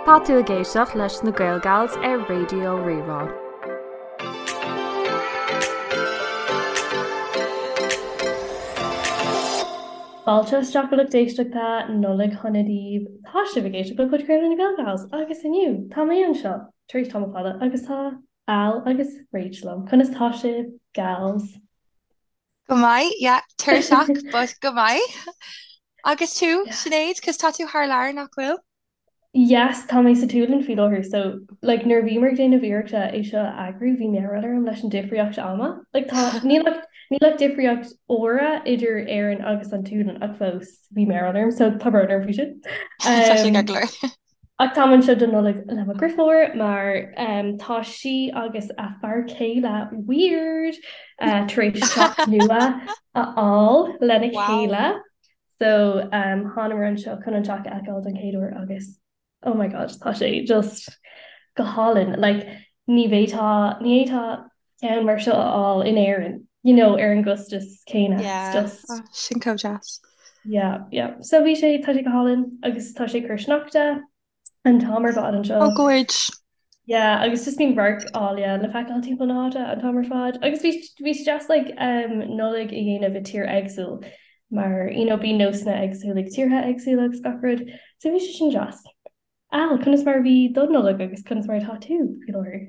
Tá tú ag éisteacht leis na Gaelgals ar Raidió Rí-Rá. Fáilte isteach a lucht éisteachta, Nollaig shona daoibh. Tá sibh ag éisteacht le podchraoladh na Gaelgals agus inniu tá mé anseo tar éis tamall fada agus tá Al agus Rach liom. Conas tá sibh, gals? Go maith, yeah, tuirseach, but go maith. Agus tú, Sinéad, cos tá tú thar lear, nach bhfuil? Yes, tá mé sa tSualainn faoi láthair, so like nuair a bhíomar ag déanamh iarrachta é seo a eagrú, bhí mearbhall orm leis an difríocht ama. Like tá, níl ach, níl ach difríocht uaire idir Éirinn agus an tSualainn ach fós bhí mearbhall orm, so tá brón orm faoi sin. Tá sé ceart go leor. Ach táim anseo don Nollaig le mo dheirfiúr mar tá sí agus a fear céile weird tar éis teach nua a fháil lena chéile. So thánamar anseo chun an teach a fheiceáil don chéad uair agus oh my god tá sé just go hálainn. Like ní bhféadfá ní fhéadfá ceann mar seo a fháil in Éirinn, you know, ar an gcostas céanna. Yeah, It's just oh, sin chomh deas. Yeah, yeah. So bhí sé, tá sé go hálainn agus tá sé ag cur sneachta an t-am ar fad anseo. Oh, gorge. Yeah, agus just bíonn radhairc áille le feiceáil timpeall na háite an t-am ar fad. Agus bhí bhí sé deas like um, Nollaig a dhéanamh i tír éagsúil mar you know, bíonn nósanna éagsúla ag tíortha éagsúla agus gach rud. So bhí sé sin deas. Al, conas mar a bhí do Nollaig agus conas mar atá tú faoi láthair?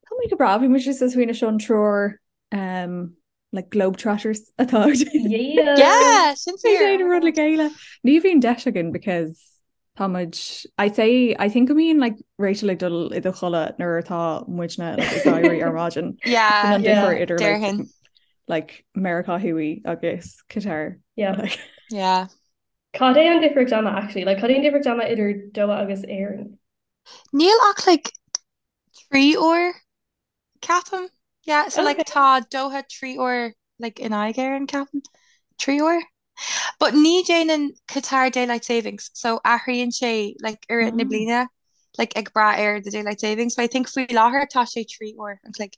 Tá mé go breá, bhí muid just ag smaoineamh seo an triúr um, like globetrotters atá Yeah! Yeah, sin Ní fíor. déanamh rud le chéile. Ní bhíonn deis againn because tá muid I say I think go mbíonn like Rachel ag dul i do chodladh nuair atá muidne like, ag éirí ar maidin. Yeah, Sin an Yeah. difear idir like, déarfainn. like Meiriceá Thuaidh agus Qatar. Yeah. Like, Yeah. Cad é an difríocht ama actually? Like cad é an difríocht ama idir Doha agus Éirinn? Níl ach like 3 uair ceapaim. Yeah, so like Okay. tá Doha 3 uair like in aghaidh Éireann ceapaim. 3 uair? But ní déanann Qatar daylight savings, so athraíonn sé like i rith na oh. bliana like ag brath ar the daylight savings. But I think faoi láthair tá sé 3 uair an chloig.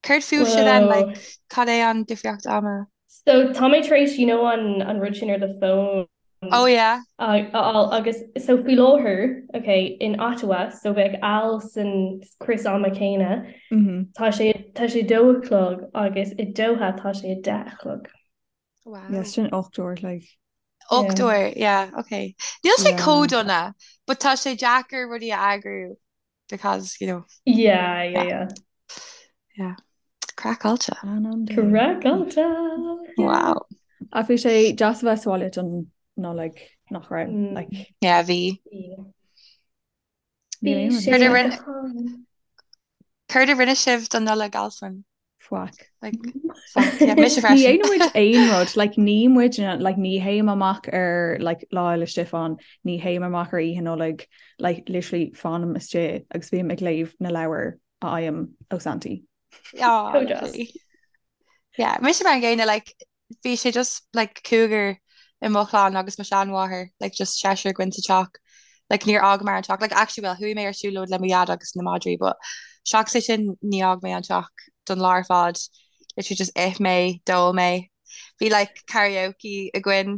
Céard fúibhse then, Whoa. like cad é an difríocht ama? So tá mé tar éis you know an an rud sin ar do phone Oh yeah. a fháil agus so faoi láthair okay in Ottawa so bheadh Al san crios ama céanna Mm -hmm. tá sé tá sé dó a chlog agus i Doha tá sé a 10 a chlog. Wow. Yes, sin 8 uair like. 8 Yeah. uair, yeah, okay. Níl sé Yeah. chomh dona, but tá sé deacair rudaí a eagrú because, you know, Yeah, yeah, yeah, yeah. yeah. Craiceáilte. An an day. Craiceáilte. Yeah. Wow. Ach bhí sé deas a bheith sa bhaile don Nollaig nach raibh Mm. like Yeah, bhí. Yeah. níl Bhí aon rud sé Céard a go rinne, hálainn. céard a rinne sibh don Nollaig, Alswyn? Faic. Like, faic, yeah, mise Ní freisin. dhéanann muid aon rud, like ní muid like ní théim amach ar like Lá Fhéile Stiofáin, ní théim amach ar Oíche Nollag, like literally fanaim istigh agus bím ag léamh na leabhar a fhaighim ó Santaí. Oh, Chomh deas. lovely. Yeah, mise mar an gcéanna, like bhí sé just like cúigear i mo chlann agus mo sheanmháthair, like just seisear againn sa teach. Like níor fhágamar an teach. Like actually well chuaigh mé ar siúlóid le mo dhaid agus na madraí but seachas é sin ní fhág mé an teach don lá ar fad. Literally just ith mé, d'ól mé. Bhí like karaoke againn.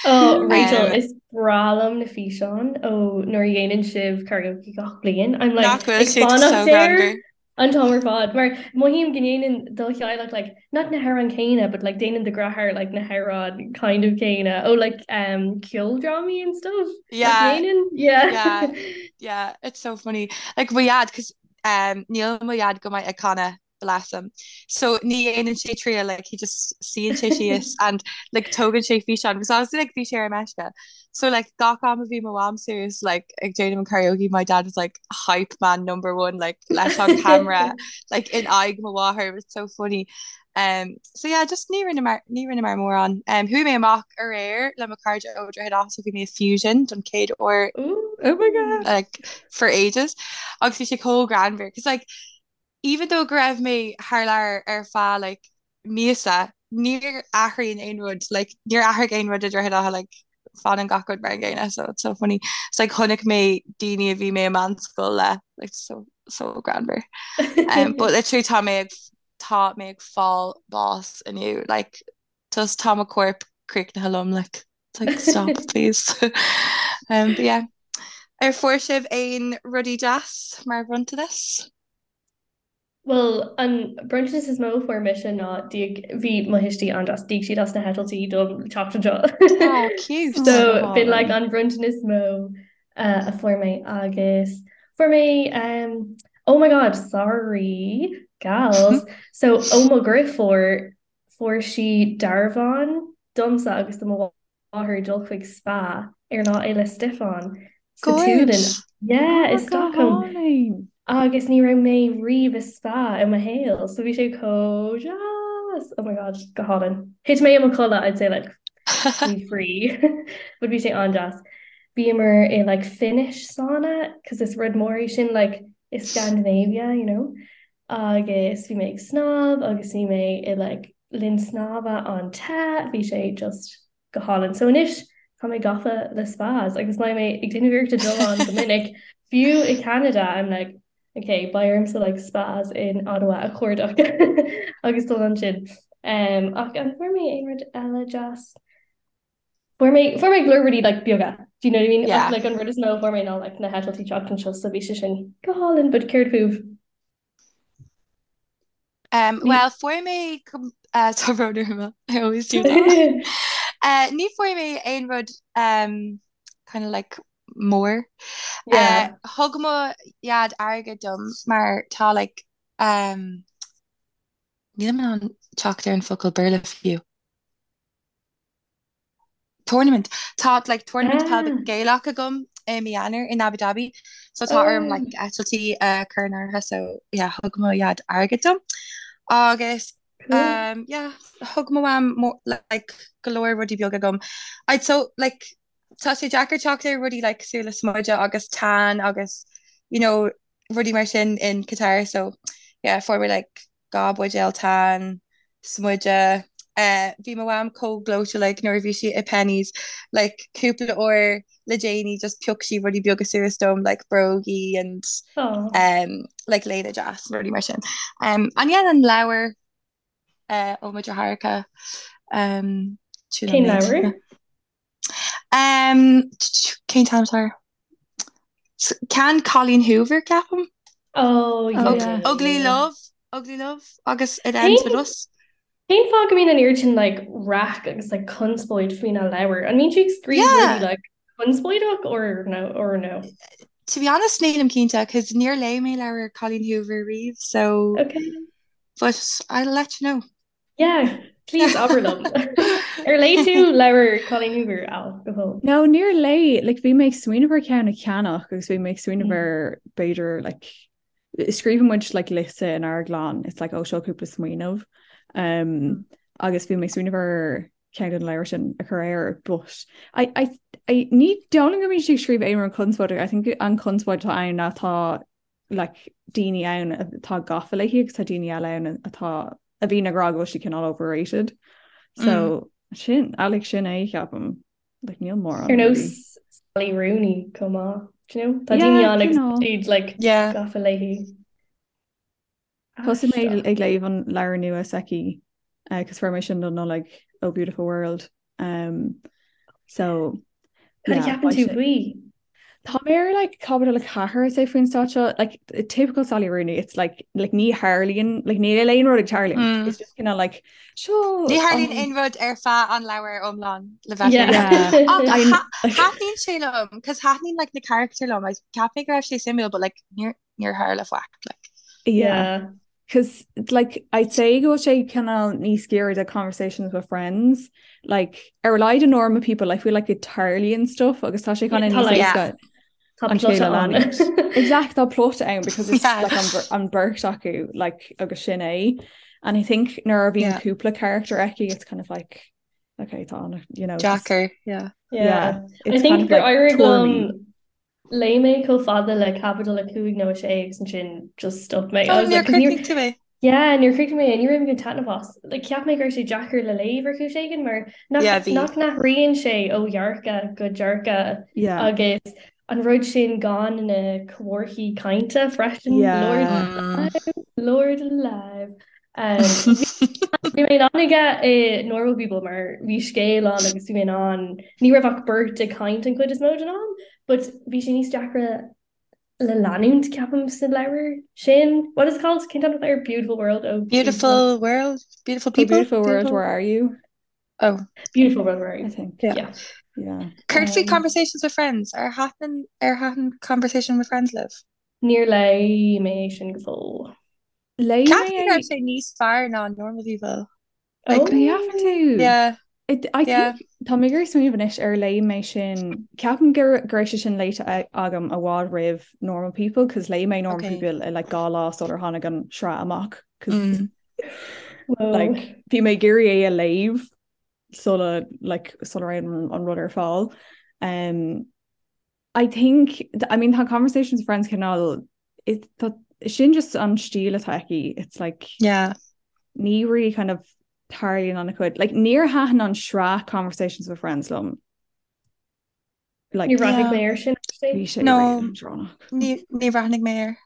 Oh, Rachel, Um, is breá liom na físeáin ó nuair a dhéanann sibh karaoke gach bliain. I'm like nach bhfuil ag siad so fanacht air greannmhar. an t-am ar fad mar mothaím go ndéanann do theaghlach like not na hamhráin céanna but like déanann do dheartháir like na hamhráin kind of céanna ó like um ceoldrámaí and stuff nach Yeah, ndéanann? Yeah. yeah, yeah, it's so funny. Like mo dhaid, cos um, níl mo dhaid go maith ag canadh, bless him. So ní dhéanann sé triail, like he just suíonn sé síos and like tógann sé físeán, because obviously like bhí sé ar meisce. So like gach am a bhí mo mham suas like ag déanamh an karaoke my dad was like hype man number one like leis an camera like in aghaidh mo mháthair it was so funny. Um, so yeah, just ní rinneamar ní rinneamar mórán. Um, chuaigh mé amach aréir le mo chairde ó Droichead Átha so bhí mé i Fusion don chéad uair Ooh. Oh my God. like for ages agus bhí sé chomh greannmhar cos like even though go raibh mé thar lear ar feadh like míosa, níor athraíonn aon rud, like níor athraigh aon rud i Droichead Átha like fanann gach rud mar an gcéanna so it's so funny. It's like chonaic mé daoine a bhí mé i meánscoil le like so so greannmhar. Um, but literally tá mé ag tá mé ag fáil bás inniu like just tá mo corp críochnaithe liom like it's like stop please. Um, but yeah. Ar fuair sibh aon rudaí deas mar bhronntanas? Bhuel, an bronntanas is mó a fuair mise ná d'íoc, bhí mo thuistí an-deas, d'íoc siad as na heitiltí dom teacht anseo. Oh, cute! So, b'in like an bronntanas is mó a fuair mé agus fuair mé um, oh my god, sorry, gals. So, ó mo dheirfiúr, fuair sí dearbhán domsa agus do mo mháthair dul chuig spa ar Lá Fhéile Stiofáin sa tSualainn. Yeah, i Stockholm. Agus ní raibh mé riamh i spa i mo shaol, so bhí sé chomh deas! Oh my god, go hálainn. Thit mé i mo chodladh, I'd say like faoi thrí. But bhí sé an-deas. Bhíomar i like Finnish sauna, cos is rud mór é sin like i Scandinavia, you know. Agus bhí mé ag snámh agus bhí mé i like linn snámha an-te, bhí sé just go hálainn. So anois tá mé gafa le spas agus beidh mé ag déanamh iarrachta dul ann go minic, fiú i Canada I'm like ok beidh ormsa like spas in Ottawa a chuardach agus dul ansin. Um, ach an fuair mé aon rud eile deas? Fuair mé fuair mé go leor rudaí like beaga, do you know what I mean? Yeah. Ach like an rud is mó a fuair mé ná like na heitiltí teacht anseo so bhí sé sin go hálainn, but céard fúibh? Um, well, fuair mé uh, tá brón orm, I always do that. Uh, ní fuair mé aon rud um, kind of like mór. Yeah. Uh, thug mo dhaid airgead dom mar tá like um, nílim in ann teacht ar an focal Béarla fiú. Tournament. Tá like tournament peil Ah. Gaelach agam i mí Eanáir in Abu Dhabi so tá orm Oh. like eitiltí a chur in áirithe so yeah thug mo dhaid airgead dom agus Cool. um yeah thug mo mham like go leor rudaí beaga dom. I'd so like tá sé deacair teacht ar rudaí like cosúil le smideadh agus tan agus you know rudaí mar sin in Qatar so yeah fuair mé like 2 buidéal tan, smideadh. Bhí mo mham chomh gleoite like nuair a bhí sí i Penneys like cúpla uair le déanaí just phioc sí rudaí beaga suas dom like brógaí and um, like léine deas rudaí mar sin. Um, and yeah, an leabhar uh, ó mo dheartháireacha um, Cén leabhar? Um, cén t-ainm atá air? Ceann Colleen Hoover, ceapaim. Oh, Oh, yeah. Ugly Love, Ugly Love agus It Ends With Us. Cén fáth go mbíonn an oiread sin like raic agus like conspóid faoina leabhar? An mbíonn sí ag scríobh Yeah. rudaí like conspóideach or no or no? To be honest, nílim cinnte, cos níor léigh mé leabhar Colleen Hoover riamh, so Okay. but I'll let you know. Yeah, please abair liom. Ar léigh tú leabhar Colleen Hoover, Al, go fóill? No, níor léigh, like bhí mé ag smaoineamh ar ceann a cheannach agus bhí mé ag smaoineamh ar b'fhéidir like scríobhann muid like liosta inár gclann, it's like oh seo cúpla smaoineamh. Um, agus bhí mé ag smaoineamh ar ceann den leabhar sin a chur air, but I, I, I, ní dóigh liom go mbíonn sí ag scríobh aon rud conspóideach, I think an conspóid atá ann ná tá like daoine ann atá gafa léi agus tá daoine eile ann atá a bhíonn ag rá go bhfuil sí cineál overrated. So mm. sin like sin é ceapaim like níl mórán. Ar nós Sally Rooney chomh maith. Do you know? Tá daoine ann agus iad like yeah. gafa léi. Thosaigh mé ag léamh an leabhar nua s'aici agus fuair mé sin don Nollaig Oh Beautiful World. Um, so Cad a cheapann tú faoi? Tá mé ar like caibidil 4 I'd say faoin staid seo like typical Sally Rooney it's like like ní tharlaíonn like níl aon rud ag tarlú mm. it's just kind of like seo Ní tharlaíonn aon rud ar feadh an leabhar iomlán le bheith Thaitníonn sé liom cos thaitníonn like na carachtair liom like cheap mé go raibh sé suimiúil but like níor níor tharla faic like. Yeah. Cos like I'd say go bhfuil sé cineál níos giorra do conversations with friends like ar a laghad in Normal People I feel like it tarlaíonn stuff agus tá sé kind of níos éasca Tá an plot scéal a ann. leanúint. Exact tá plot ann because it's Yeah. like an, an beirt acu like agus sin é and I think nuair a bhíonn Yeah. cúpla character aici it's kind of like okay tá an you know just Deacair, yeah. Yeah. yeah I it's kind think of gur like éirigh tuairimí. liom Léigh mé chomh fada le caibidil 5 nó 6 agus ansin just stop mé. I Oh, was níor like, 'cause níor chríochnaigh tú é. yeah, níor chríochnaigh mé é, ní raibh mé ag baint taitneamh as. Like, cheap mé go raibh sé deacair le léamh ar chúis éigin mar nach Yeah, bhí. nach n-athraíonn sé ó dhearcadh go dearcadh Yeah. agus an rud sin gan na comharthaí cainte freisin, Yeah. Lord alive, Lord alive. Um, bhí mé in ann aige i Normal People mar bhí scéal ann agus bhí mé in ann ní raibh ach beirt ag caint an chuid is mó den am, but bhí sé níos deacra le leanúint ceapaim sa leabhar sin. What is it called? Cén t-ainm air Beautiful World oh Beautiful World Beautiful People oh, Beautiful World Where Are You? Oh Beautiful World Where Are You? I think. Yeah. Yeah. Yeah. Céard faoi Um, Conversations with Friends ar thaitin ar thaitin Conversation with Friends libh? Níor léigh mé é sin go fóill. Léigh mé Ceapaim go é raibh sé níos fearr ná Normal People. Like, An gceapann tú? yeah, It, I yeah. think tá mé ag iarraidh smaoineamh anois ar léigh mé sin ceapaim go go raibh sé sin léite agam i bhfad roimh Normal People cos léigh mé Normal Okay. People i like dhá lá sular tháinig an sraith amach cos Mm. Whoa. like bhí mé ag iarraidh é a léamh sula like sula raibh an, an rud ar fáil. Um, I think I mean tá Conversations with Friends cineál it tá sin just an stíl atá aici it's like Yeah. ní really kind of tarlaíonn an-chuid like níor thaitin an sraith Conversations with Friends liom like Níor bhreathnaigh Yeah. mé air sin actually. bhí sé No, really leadránach. ní ní bhreathnaigh mé air.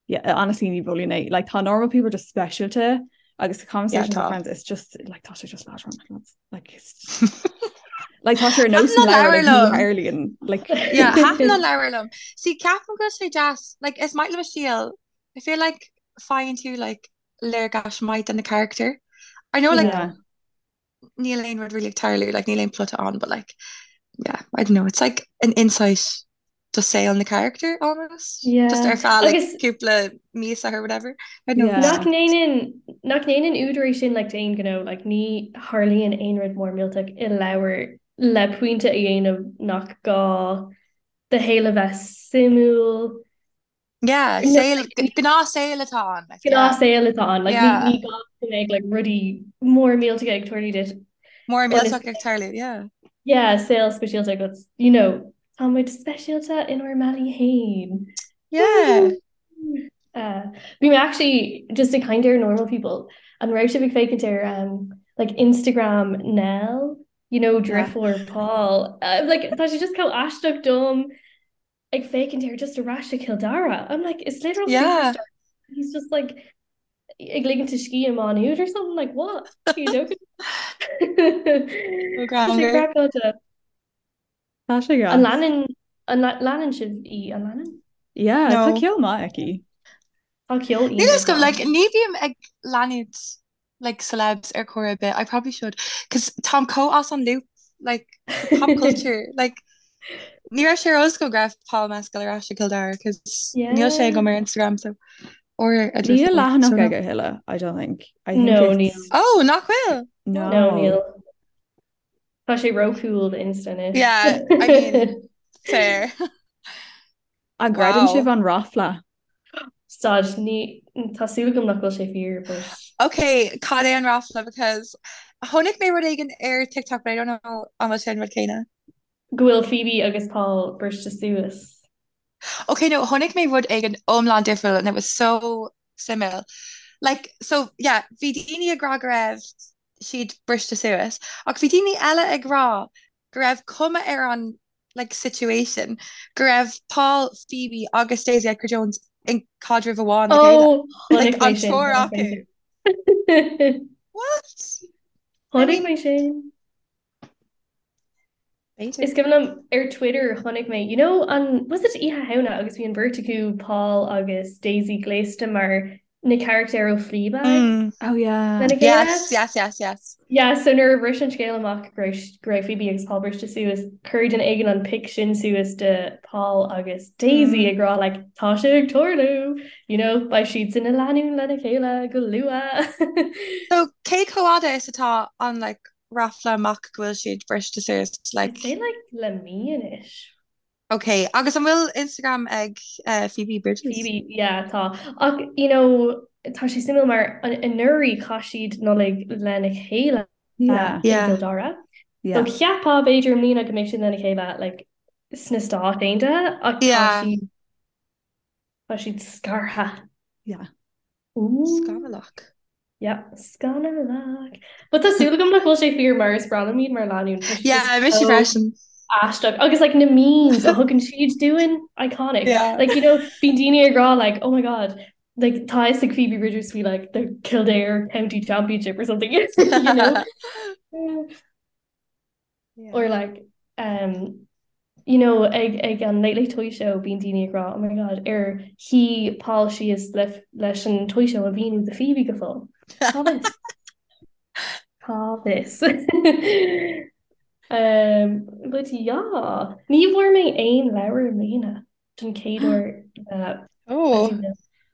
Yeah, honestly ní mholfainn é like tá normal people just speisialta agus the Yeah, conversations with tá. friends it's just like tá sé just leadránach lads. like it's like tá sé ar nós Thaitin an an leabhar leabhar like ní liom. tharlaíonn like Yeah, thaitin an leabhar liom. See, ceapaim go bhfuil sé deas, like is maith liom a stíl. I feel like faigheann tú like léargas maith de na carachtair. I know like yeah níl aon rud really ag tarlú, like níl aon plota ann, but like yeah, I don't know, it's like an insight do saol na carachtar almost. Just Yeah. ar feadh like Agus cúpla míosa or whatever. I don't know. yeah nach ndéanann nach ndéanann údar é sin like d'aon ghnó like ní tharlaíonn aon rud mór millteach i leabhar le pointe a dhéanamh nach gá do shaol a bheith suimiúil Yeah, No, saol gnáthshaol atá ann, like yeah. gnáthshaol atá ann like ní Yeah. ní gá go mbeadh like rudaí mór millteacha ag tarlú duit Mór ionas millteach ag tarlú, yeah. yeah saol speisialta agat you know tá muid speisialta inár mbealaí féin. Yeah. Uh, bhí mé actually just ag caint ar normal people an raibh sibh ag féachaint ar um, like Instagram Nell you know Yeah. deirfiúr Paul uh, like tá sé just chomh aisteach dom ag féachaint air just ar ais i Cill Dara. I'm like, it's literal Yeah. superstar. He's just like ag ligint a scíth i Má Nuad or something like what? Are you joking? Ó Tá sé greannmhar. craiceáilte. Tá sé An gas. leanann an leanann sibh í an leanann? Yeah, tá No. ceol maith aici. Tá ceol Níl a fhios iontach agam, like aici. ní bhím ag leanúint like celebs ar chor ar bith. I probably should cos táim chomh as an loop like the pop culture like ní raibh sé ar eolas agam go raibh Paul Mescal ar ais i Cill Dara cos níl sé Yeah. agam ar Instagram so or a Níl deirfiúr so leathanach no. aige a thuilleadh, I don't think. I think No, níl. it's Oh, nach bhfuil? No, no. níl. Tá sé ró-cool Insta anois. Yeah, I mean fair. An gcreideann Wow. sibh an ráfla? Stad, ní, tá súil agam nach bhfuil sé fíor, but Okay, cad é an ráfla because chonaic mé rud éigin ar TikTok but I don't know an bhfuil sé an rud céanna. go bhfuil Phoebe agus Paul briste suas. Okay, no, chonaic mé rud éigin iomlán difriúil and it was so suimiúil. Like, so, yeah, bhí daoine ag rá go raibh siad briste suas ach bhí daoine eile ag rá go raibh cuma ar an like situation go raibh Paul, Phoebe agus Daisy Edgar-Jones in caidreamh amháin le chéile. Oh, Like chonaic mé an sin, triúr chonaic mé acu. sin. What? I Chonaic mean, mé sin. b'fhéidir. Is cuimhin liom ar Twitter chonaic mé, you know, an was it Oíche Shamhna agus bhí an bheirt acu, Paul agus Daisy gléasta mar na carachtair ó Fleabag Mm. Oh yeah. lena chéile? Yes, yes, yes, yes. Yeah, so nuair a bhris an scéal amach go raibh go raibh Phoebe agus Paul briste suas, chuir duine éigin an pic sin suas de Paul agus Daisy Mm. ag rá like tá sé ag tarlú, you know, beidh siad ina lánúin lena chéile go luath. So cé chomh fada is atá an like ráfla amach go bhfuil siad briste suas I'd like say like le mí anois. Ok, agus an bhfuil Instagram ag Phoebe Bridgers? Phoebe, yeah, tá. Ach, you know, tá sé suimiúil mar anuraidh chaith siad Nollaig lena chéile Yeah. i Yeah. gCill Dara. So Yeah. cheapfá b'fhéidir i mbliana go mbeidh siad lena chéile like sna Stáit Aontaithe ach tá Yeah. siad tá siad scartha. Yeah. Ooh. Scannalach. Yeah, scannalach. But tá súil agam nach bhfuil sé fíor mar is breá liom iad mar lánúin. Tá siad Yeah, just mise so freisin. aisteach. Agus like na memes a thugann siad dúinn, iconic. Yeah. Like you know, bíonn daoine ag rá like, oh my god, Like tá a fhios ag Phoebe Bridgers faoi like the Kildare County Championship or something you know? Yeah. Or like um, you know, ag, ag an Late Late Toy Show bíonn daoine ag rá oh my god ar shuigh Paul síos le, leis an Toy Show a mhíniú do Phoebe go fóill. Cá bhfios? Cá bhfios? um, but yeah, ní bhfuair mé aon leabhar i mbliana don chéad uair le Oh.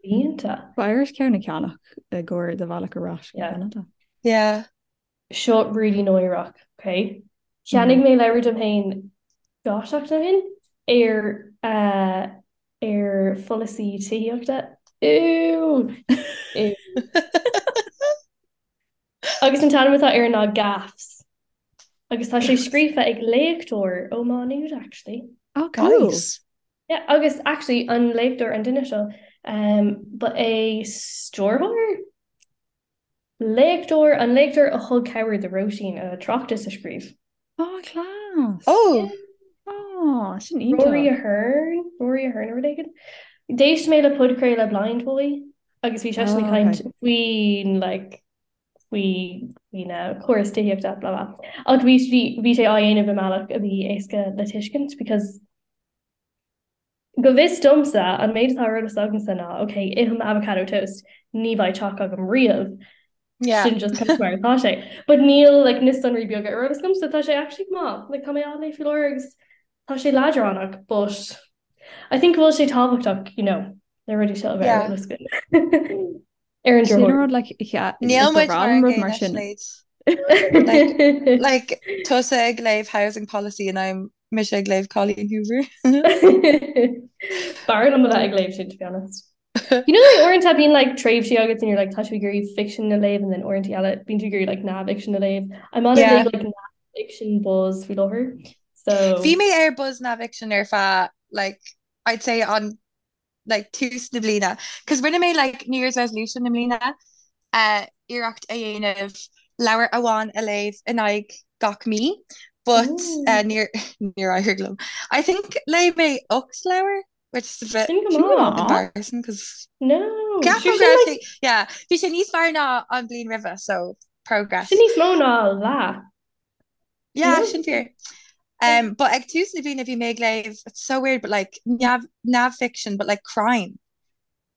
blianta. Beidh ort ceann a cheannach i gcomhair do bhealach ar ais go Yeah. Ceanada. Yeah. Seo really náireach, ok? Cheannaigh mé leabhar dom féin 2 seachtain ó shin ar eh, ar pholasaí tithíochta. Ew! Ew. Agus an t-ainm atá air ná Gaffs. Agus tá sé scríofa ag léachtóir ó Má Nuad actually. Oh, cool. Nice. Yeah, agus actually an léachtóir an duine seo um, ba é stiúrthóir? Léachtóir, an léachtóir a thug cabhair do Róisín a tráchtas a scríobh. Oh, class. Oh! Oh, sin Rory iontach. Ahern, Rory Ahern nó rud éigin. D'éist mé le podchraoladh Blindboy agus bhí seisean ag Oh, caint okay. faoin like faoi faoi na córas tithíochta blah blah. Ach bhí bhí bhí sé á dhéanamh i mbealach a bhí éasca le tuiscint because Go bhfios domsa, an méid atá ar eolas agamsa ná, ok, ithim avocado toast, ní bheidh teach agam riamh. Yeah. Sin just kind of mar atá sé. But níl like, na sonraí beaga ar eolas agamsa, tá sé actually go maith. Like, tá mé á léamh faoi láthair agus tá sé leadránach, but I think go bhfuil sé tábhachtach, you know, na rudaí seo a bheith ar Yeah. eolas againn. Ar an Sin drochuair. rud like yeah, Níl ba muid bhreá mar liom an rud mar gcéanna sin. Sinéad. Like, like tusa ag léamh housing policy and I'm mise ag léamh Colleen Hoover. B'fhearr liom a bheith ag léamh sin, to be honest. You know, like uaireanta bíonn like tréimhsí agat and you're like tá tú ag iarraidh fiction a léamh and then uaireanta eile bíonn tú ag iarraidh like neamhfhicsean a léamh. I'm on a Yeah. big like neamhfhiction buzz faoi láthair. So Bhí mé ar buzz neamhfhicsean ar feadh like I'd say on like tús na bliana. Cos rinne mé like New Year's resolution i mbliana uh, iarracht a dhéanamh leabhar amháin a léamh in aghaidh gach mí, but uh, níor níor éirigh liom. I think léigh mé 8 leabhar, which is a bit Sin go maith. embarrassing cos No. Ceapaim Sure, go sin raibh like sé yeah, bhí sé níos fearr ná an bhliain roimhe, so progress. sin níos mó ná leath. Yeah, No? sin fíor. Um, but ag tús na bliana bhí mé ag léamh, it's so weird, but like neamh neamhfhiction, but like crime.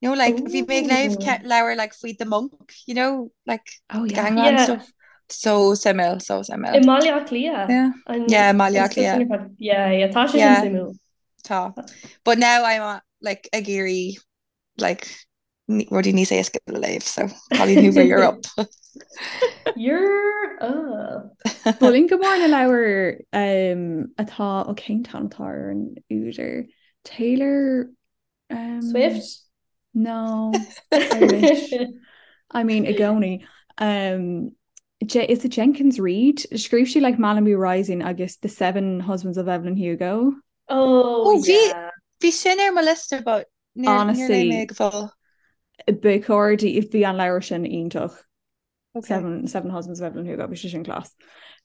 You know, like bhí mé ag léamh Ooh. ce- leabhar like faoi The Monk, you know, like Oh the yeah. gangland Yeah. stuff. So suimiúil, so I suimiúil. mBaile Átha Cliath. Yeah. An Yeah, Mbaile an Átha stuff sin Cliath. ar fad. Yeah, yeah, tá sé sin Yeah, suimiúil. tá. But now I'm uh, like ag iarraidh like rudaí níos éasca le léamh, so Colleen Hoover, you're up. You're up. Mholfainn go mór na leabhair um, atá ó cén t-ainm atá ar an údar Taylor um, Swift? No, I wish. I mean i gcónaí. Um, Je is it Jenkins Reid? Scríobh sí like Malibu Rising agus The Seven Husbands of Evelyn Hugo. Oh, Oh, bhí yeah. bhí sin ar mo liosta, but níor níor léigh mé Honestly, go fóill. ba chóir di bhí an leabhar sin iontach. Okay. Seven, Seven Husbands of Evelyn Hugo, bhí sé sin class.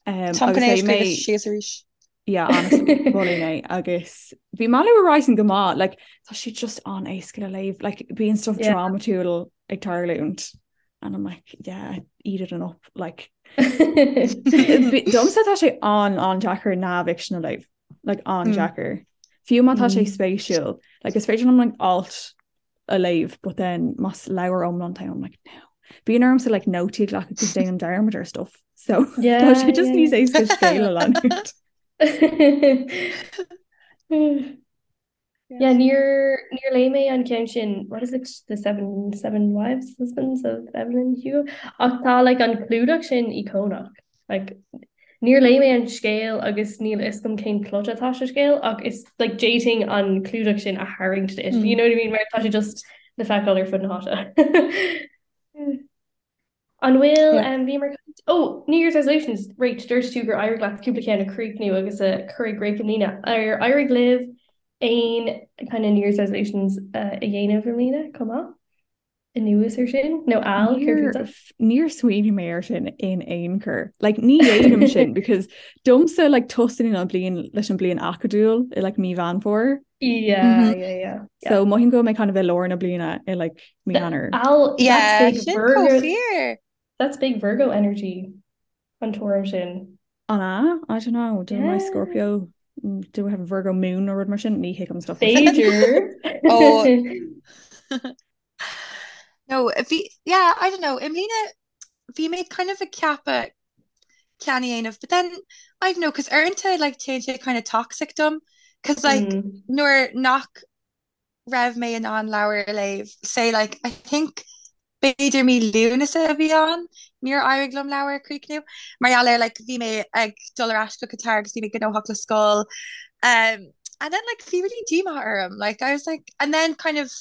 Um, Táim agus chun é a léigh scríobh mé síos arís. yeah, honestly, mholfainn é agus bhí Malibu Rising go maith, like, tá sé just an-éasca le léamh, like, bíonn stuff Yeah. drámatúil ag tarlúint and I'm like, yeah, eat it up, like, domsa tá sé an an-deacair neamhfhicsean a léamh, like, an-deacair. Fiú má tá sé spéisiúil, like, is féidir liom like, alt a léamh, but then más leabhar iomlán tá I'm like, no. Bíonn ormsa like nótaí a ghlacadh agus déanaim dearmad ar stuff. So tá Yeah, sé just yeah, níos éasca scéal a leanúint. Yeah, níor níor léigh mé an ceann sin, what is it, The Seven Seven Wives, Husbands of Evelyn Hugo? Ach tá like an clúdach sin íocónach. Like níor léigh mé an scéal agus níl a fhios agam cén plot atá sa scéal ach is like d'fhéadfainn an clúdach sin a tharraingt duit. You know what I mean? Mar tá sé just le feiceáil ar fud na háite. An bhfuil Yeah. um, bhíomar caint Oh, New Year's resolutions, right, dúirt tú gur éirigh leat cúpla ceann a chríochnú agus a chur i gcrích i mbliana. Ar éirigh libh aon kind of New Year's resolutions uh, a dhéanamh i mbliana chomh maith? Anuas ar sin? Nó Al, céard Níor fútsa? níor smaoinigh mé ar sin in aon chor. Like ní dhéanaim sin because domsa like tosaíonn an bliain leis an bliain acadúil i like mí Mheán Fómhair. Yeah, yeah, yeah. So mothaím go bhfuil mé kind of i lár na bliana i like mí Eanáir. Al, Yeah, that's big sin Virgo. chomh fíor. That's big Virgo energy an tuairim sin. An ea? I don't know. Do my Yeah. Scorpio do I have a Virgo moon nó rud mar sin? Ní thuigim stuff. B'fhéidir. Oh. No, bhí, yeah, I don't know, i mbliana bhí mé kind of ag ceapadh ceann a dhéanamh, but then, I don't know, cos uaireanta like téann sé kind of toxic dom, cos like Mm. nuair nach raibh mé in ann leabhar a léamh, say like I think b'fhéidir mí Lúnasa a bhí ann, níor éirigh liom leabhar a chríochnú, mar gheall ar like bhí mé ag dul ar ais go Qatar agus bhí mé gnóthach le scoil, um, and then like bhí really díomá orm, like I was like, and then kind of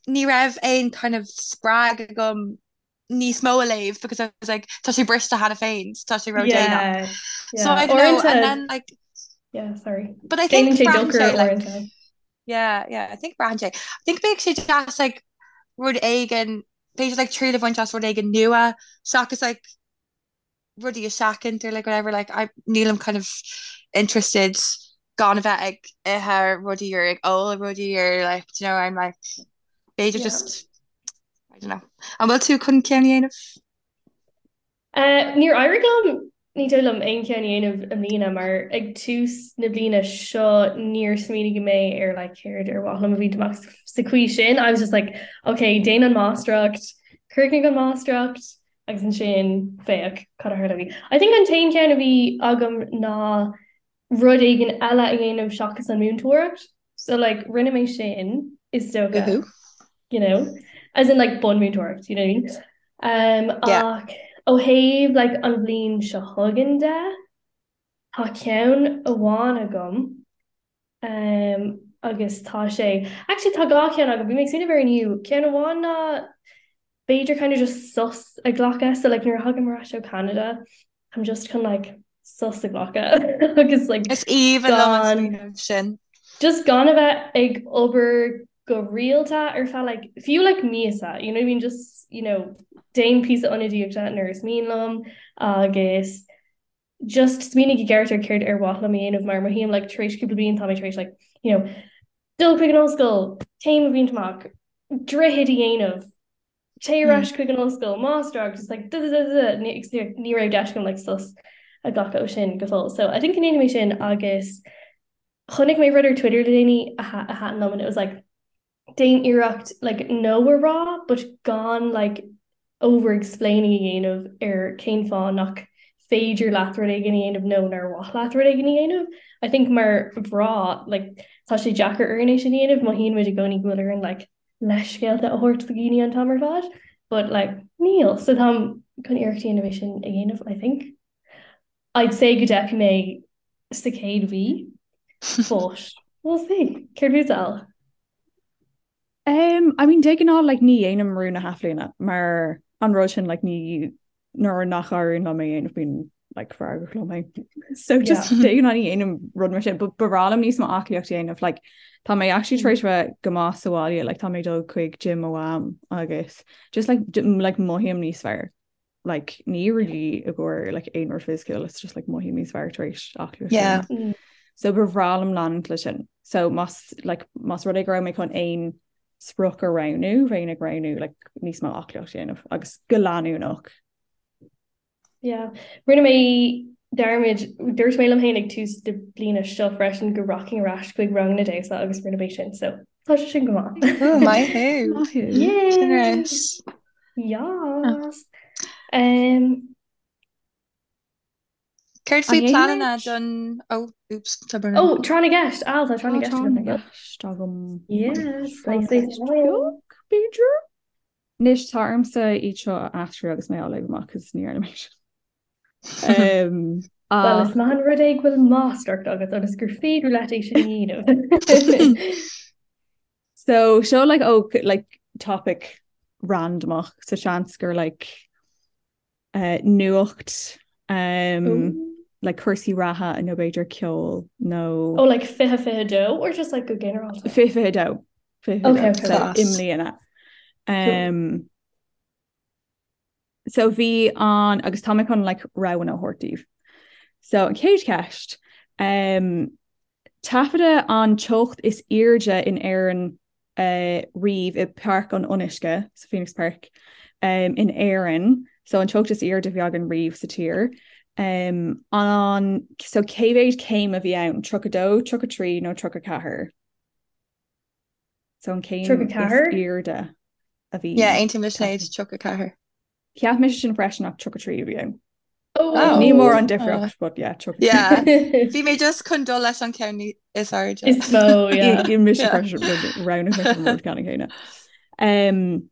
ní raibh aon kind of spreag agam níos mó a léamh because I was like tá sé briste cheana féin, tá sé ródhéanach. Yeah, So yeah. I don't know, and Uaireanta, then like yeah, sorry. but I think Déanann sé braitheann dochar sé like uaireanta. yeah, yeah, I think braitheann sé. I think bheadh sé deas like rud éigin, b'fhéidir like triail a bhaint as rud éigin nua seachas like rudaí a sheachaint or like whatever like I nílim kind of interested gan a bheith ag ithe rudaí or ag ól rudaí or like do you know I'm like b'fhéidir Yeah. just I don't know. An bhfuil tú chun ceann a dhéanamh? Uh, níor éirigh liom ní dóigh liom aon cheann a dhéanamh i mbliana mar ag tús na bliana seo níor smaoinigh mé ar like céard ar mhaith liom a bhaint amach sa chaoi sin. I was just like, okay, déan an máistreacht, críochnaigh an máistreacht, Agus ansin, féach, cad a tharlóidh. I think an t-aon cheann a bhí agam ná rud éigin eile a dhéanamh seachas an múinteoireacht. So like rinne mé sin is dócha, Woohoo. you know, as in like bunmúinteoireacht, you know what I mean? Um, Yeah. ach ó thaobh like an bhliain seo chugainn de, tá ceann amháin agam Um, agus tá sé, actually tá dhá cheann agam, bhí mé ag smaoineamh air inniu, ceann amháin ná b'fhéidir kind of just sos a ghlacadh, so like nuair a thagaim ar ais ó Canada, I'm just chun like sos a ghlacadh agus like Is aoibhinn liom an gan smaoineamh sin. just gan a bheith ag obair go rialta ar feadh like fiú like míosa, you know what I mean, just you know déan píosa ionadaíochta nuair is mian liom agus just smaoinigh i gceart ar céard ar mhaith liom a dhéanamh mar mothaím like tar éis cúpla bliain tá mé tar éis like you know dul chuig an ollscoil, céim a bhaint amach, droichead a dhéanamh, téigh ar ais chuig an ollscoil, máistreacht, just like da da da da ní ní raibh deis agam like sos a ghlacadh ó sin go fóill. So I think go ndéanfaidh mé sin agus chonaic mé rud ar Twitter le déanaí a a thaitin liom and it was like déan iarracht like no a rá but gan like over explaining a dhéanamh ar cén fáth nach féidir leat rud éigin a dhéanamh nó nár mhaith leat rud éigin a dhéanamh. I think mar mhná like tá sé deacair orainn é sin a dhéanamh, mothaíonn muid i gcónaí go bhfuil orainn like leithscéalta a thabhairt do dhaoine an t-am ar fad but like níl. So táim chun iarracht a dhéanamh é sin a dhéanamh I think. I'd say go dteipfidh mé sa chéad mhí but we'll see. Céard fút Al? Um, I mean, de ghnáth like, ní dhéanaim rún na hathbhliana mar an rud sin like, ní nuair nach éiríonn liom é a dhéanamh bím like, feargach liom féin. So just Yeah. de ghnáth ní dhéanaim rud mar sin, but ba bhreá liom níos mó aclaíocht a dhéanamh like, tá mé actually tar éis bheith go maith sa bhaile, like, tá mé ag dul chuig gym mo mham agus just like, like mothaím níos fearr. like ní really i gcomhair like aon rud fisiciúil it's just like mothaím níos fearr tar éis aclaíocht Yeah. Mm. So ba bhreá liom leanúint le sin. So más like más rud é go raibh mé chun aon sprioc a roghnú bheinn ag roghnú like níos mó aclaíocht a dhéanamh agus go leanúnach. Yeah. Rinne mé dearmad, dúirt mé liom féin ag tús na bliana seo freisin go rachainn ar ais chuig ranganna damhsa agus rinne mé sin so tá sé sin go maith. Ooh, maith thú. Maith thú. Yay! Generous. Yes. Um, Céard faoi An pleananna dhéanfaimid? don oh oops tá brón oh, orm. tráth na gceist. Al, tá tráth na Tá gceist tráth agam. na gceist agam. Yes, Tráth nice, na nice. gceist beag, b'fhéidir? Anois tá ormsa iad seo a aistriú agus mé á léamh amach cos ní dhearna mé sin. Um, Well, ach is maith an rud é go bhfuil máistreacht agat ionas gur féidir leat é sin a dhéanamh. So seo like oh like topic randomach so seans gur like uh, nuacht um, Ooh. like cúrsaí reatha nó b'fhéidir ceol nó Oh, like 2022 or just like go ginearálta? 2022 Okay, okay, so Class. i mbliana. Cool. Um, so bhí an agus tá mé chun like roghanna a thabhairt daoibh. So an chéad cheist um, Taifeadadh an teocht is airde in Éirinn riamh i Páirc an Fhionnuisce, sa Phoenix Park, in Éirinn, so an teocht is airde a bhí againn riamh sa tír. An, so cé mhéad céim a bhí ann? 32, 33 nó 34? So an céim is airde a bhí. Yeah, aontaím le Sinéad, 34. Cheap mise sin freisin ach 33 a bhí ann. Oh. Ní mór an difríocht, but yeah, 33. Yeah. Bhí mé just chun dul leis an ceann is airde. Is mó, yeah. I mise freisin roghnaigh mise an rud ceannann céanna. Um,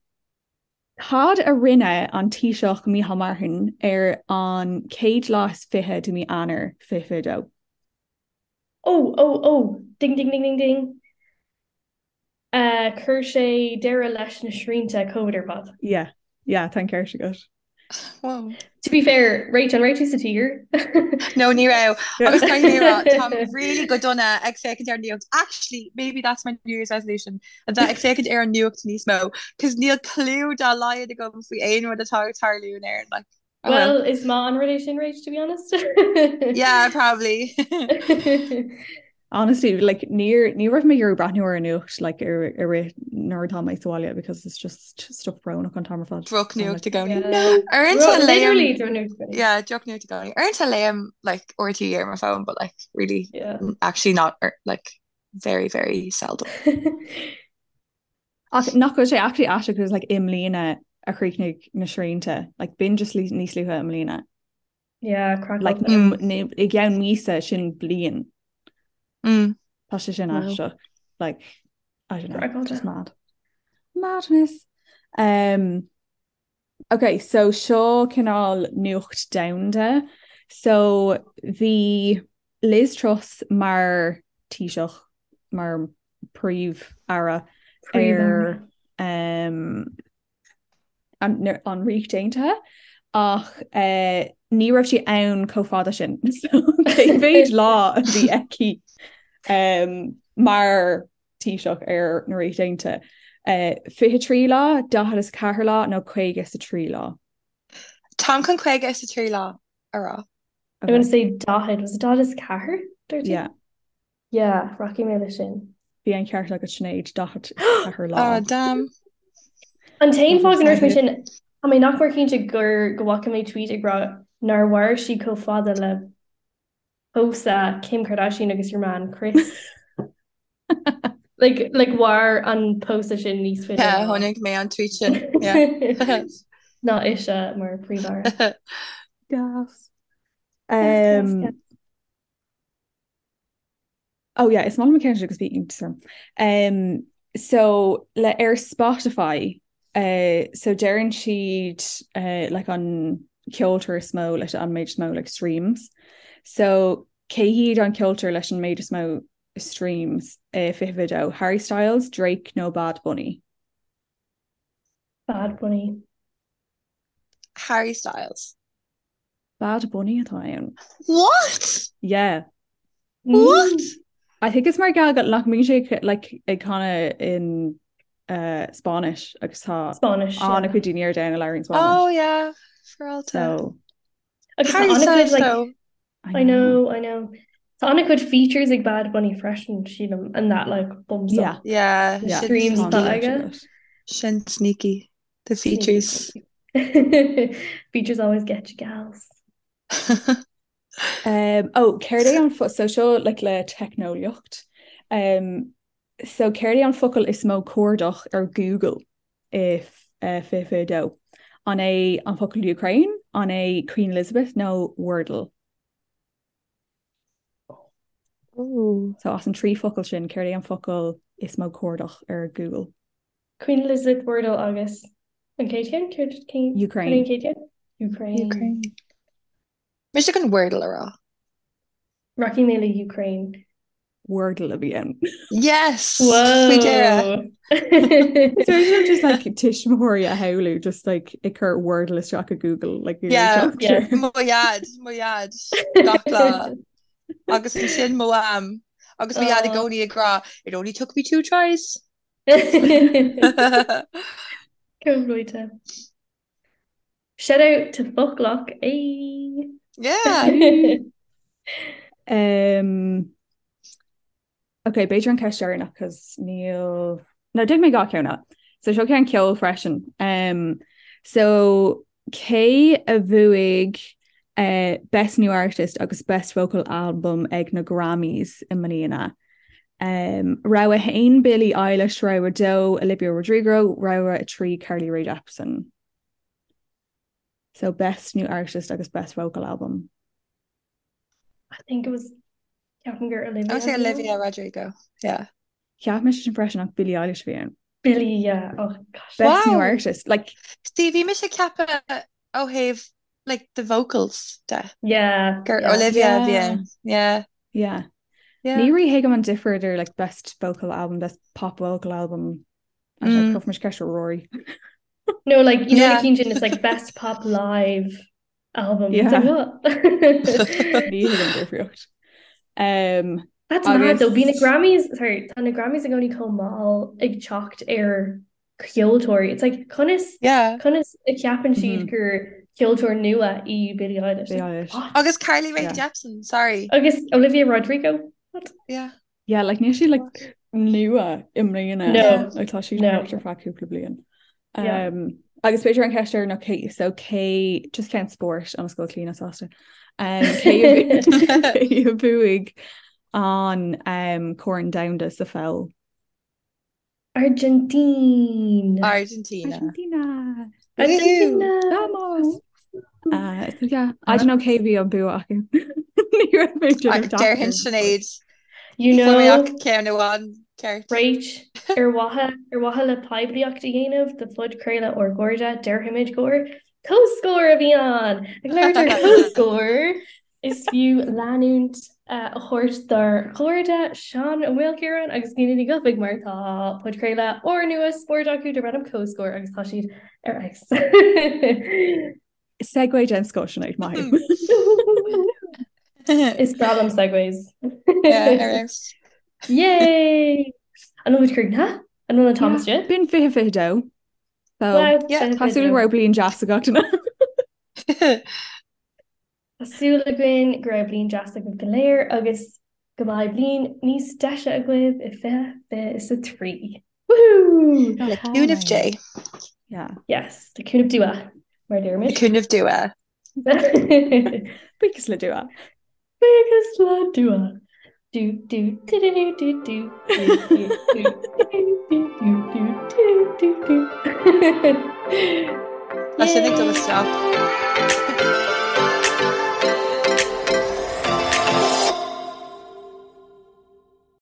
Cad a rinne an Taoiseach Micheál Martin ar an chéad lá is 20 de mí Eanáir 2022? Oh, oh, oh, ding, ding, ding, ding, ding. Chuir sé deireadh leis na srianta Covid ar fad. Yeah, yeah, tá an ceart agat. Wow. To be fair, Rach, an raibh tú sa tír? No, ní raibh. Agus caithfidh mé a rá, táim really go dona ag féachaint ar an nuacht. Actually, maybe that's my New Year's resolution, a bheith ag féachaint ar an nuacht níos mó, cos níl clue dá laghad agam faoi aon rud atá ag tarlú in Éirinn, like. Oh well. Well, is maith an rud é sin, Rach, to be honest. Yeah, probably. Honestly, like níor ní raibh mé ag iarraidh breathnú ar an nuacht like ar i rith nuair atá mé sa bhaile because it's just stuff brónach an t-am ar fad. Drochnuacht i gcónaí. Yeah. No. Uaireanta léim Literally drochnuacht i gcónaí. Yeah, drochnuacht i gcónaí. Uaireanta léim like RTÉ ar mo phone, but like really Yeah. actually not like very very seldom. Ach nach bhfuil sé actually aisteach because like i mbliana a chríochnaigh na srianta, like b'in just níos luaithe i mbliana. Yeah, craiceáilte. Like mm. i gceann míosa sin bliain. Mm. Tá sé sin aisteach. Like I don't know, just mad. Madness. Um, okay, so seo cineál nuacht domhanda. So bhí Liz Truss mar Taoiseach, mar Príomh-Aire ar um, an, an Ríocht Aontaithe ach uh, ní raibh sí ann chomh fada sin. So cé mhéad lá a bhí aici um, mar Taoiseach ar na Ríocht Aontaithe. Uh, 23 lá, 44 lá nó 53 lá. Táim chun 53 lá a rá. I'm gonna say 40, was it 44? Dúirt tú? Yeah. Yeah, rachaidh mé leis sin. Bhí an ceart agat Sinéad, 44 lá. Oh, damn. An t-aon fáth go ndúirt mé sin, tá mé nach mór cinnte gur go bhfaca mé tweet ag rá nár mhair sí chomh fada le pósadh Kim Kardashian agus your man Kris. Like, like mhair an pósadh sin níos faide Yeah, ná chonaic mé an tweet sin. Yeah. ná ise mar príomh-aire. Gas. Gas, Um, gas, gas. Oh yeah, is maith liom an ceann seo agus bhí iontas orm. Um, so le ar Spotify uh, so deireann siad uh, like an ceoltóir is mó leis an méid is mó like streams. So cé hiad an ceoltóir leis an méid is mó streams uh, 2022 Harry Styles, Drake nó Bad Bunny? Bad Bunny. Harry Styles. Bad Bunny atá ann. What? Yeah. What? I think it's mar gheall go nach mbíonn sé like ag canadh in uh, Spáinnis agus tá Spáinnis, yeah. an-chuid daoine ar domhan a labhraíonn Spáinnis. Oh yeah, for So Agus tá Harry an-chuid Styles like though. I know, I know. Tá an-chuid features ag Bad Bunny freisin, sílim, and that like bumps Yeah. up Yeah, the Yeah. sin streams Tá atá sneaky. an-cheart aige. agat. Sin sneaky. The Sneaky, features. sneaky. Features always get you gals. Um, oh, céard é an fo so seo like le teicneolaíocht. Um, so céard é an focal is mó cuardach ar Google i uh, 2022? An é an focal Ukraine, an é Queen Elizabeth nó Wordle? Ooh. So as an trí focal sin, céard é an focal is mó cuardach ar Google? Queen Elizabeth Wordle agus an chéad cheann? Céard cén Ukraine. an chéad cheann? Ukraine. Ukraine. Mise chun Wordle a rá. Rachaidh mé le Ukraine. Wordle a bhí ann. Yes! Faoi dheireadh. Whoa! So is just like tuismitheoirí a shamhlú just like ag cur Wordle isteach i Google like Yeah. Yeah. Mo dhaid, mo dhaid, gach lá. Agus ansin mo mham. Agus mo dhaid i Oh. gcónaí ag rá, it only took me two tries. Chomh luaite. Shout out to Foclach. Ay. Yeah. Um, Ok, b'fhéidir an ceist deireanach cos níl No, déanfaidh mé dhá cheann eile. So seo ceann ceoil freisin. Um, so cé a bhuaigh uh, Best New Artist agus Best Vocal Album ag na Grammys i mbliana? Um, rogha 1 Billie Eilish, rogha 2 Olivia Rodrigo, rogha 3 Carly Rae Jepsen. So Best New Artist agus Best Vocal Album. I think it was ceapaim gur Olivia. I would say Olivia Rodrigo. Yeah. Cheap mise sin freisin ach Billie Eilish a bhí ann. Billie, yeah. Oh gosh. Best new artist. Like See, bhí mise ag ceapadh ó thaobh like the vocals de. Yeah. Gur Olivia a bhí ann. Yeah. Yeah. Yeah. Ní rí-thuigim an difear idir like best vocal album, best pop vocal album. Mm. Cuirfidh mise ceist ar Rory. No, like you know na cinn sin it's like best pop live album. Yeah. Ní thuigim an difríocht. Um, That's mad though, bhí na Grammys, sorry, tá na Grammys i gcónaí chomh mall ag teacht ar cheoltóirí. It's like conas yeah. conas a cheapann siad mm -hmm. gur ceoltóir nua í Billie Eilish. Billie Eilish. What? Agus Carly Rae yeah. Jepsen, sorry. Agus Olivia Rodrigo. What? Yeah. Yeah, like níl sí like nua i mbliana. No. Like tá sí No. ar feadh cúpla bliain. Yeah. Um, agus b'fhéidir an ceist deireanach cé so cé just ceann spóirt ionas go bhfuil Clíona sásta. Um, cé a bhu- cé a bhuaigh an um, Corn Domhanda sa pheil? Argentina. Argentina. Argentina. Argentina. Vamos! Uh, so yeah, I don't know cé bhí an bua acu. Ní raibh mé ag déanamh Déarfainn deacair. Sinéad. You Fuair mé know, ach ceann amháin ceart. Rach, ar mhaithe ar mhaithe le poiblíocht a dhéanamh do phodchraoladh ár gcairde, déarfaimid gur comhscór a bhí ann! Ag labhairt ar comhscór, Is fiú leanúint a thabhairt dár gcairde Seán Ó Maolchiaráin agus Nina Ní Dhufaigh mar tá podchraoladh úrnua spóirt acu darb ainm Comhscór agus tá siad ar fheabhas. Segue den scoth, Sinéad, maith thú. Is breá liom segues. Yeah, ar fheabhas. Yay! An bhfuil muid críochnaithe? An bhfuil an t-am istigh? B'in 2022. So, Wow, Yeah. tá súil go raibh bliain deas ag gach duine. Tá súil againn go raibh bliain deas agaibh go léir agus go mbeidh bliain níos deise agaibh i 2023. Woohoo! Le cúnamh Dé. Yeah. Yes, le cúnamh Dua, mar deirimid. Le cúnamh Dua. Buíochas le Dua. Buíochas le Dua. Do do do do do do do do do do do do do do do do. Tá sin ag dul isteach.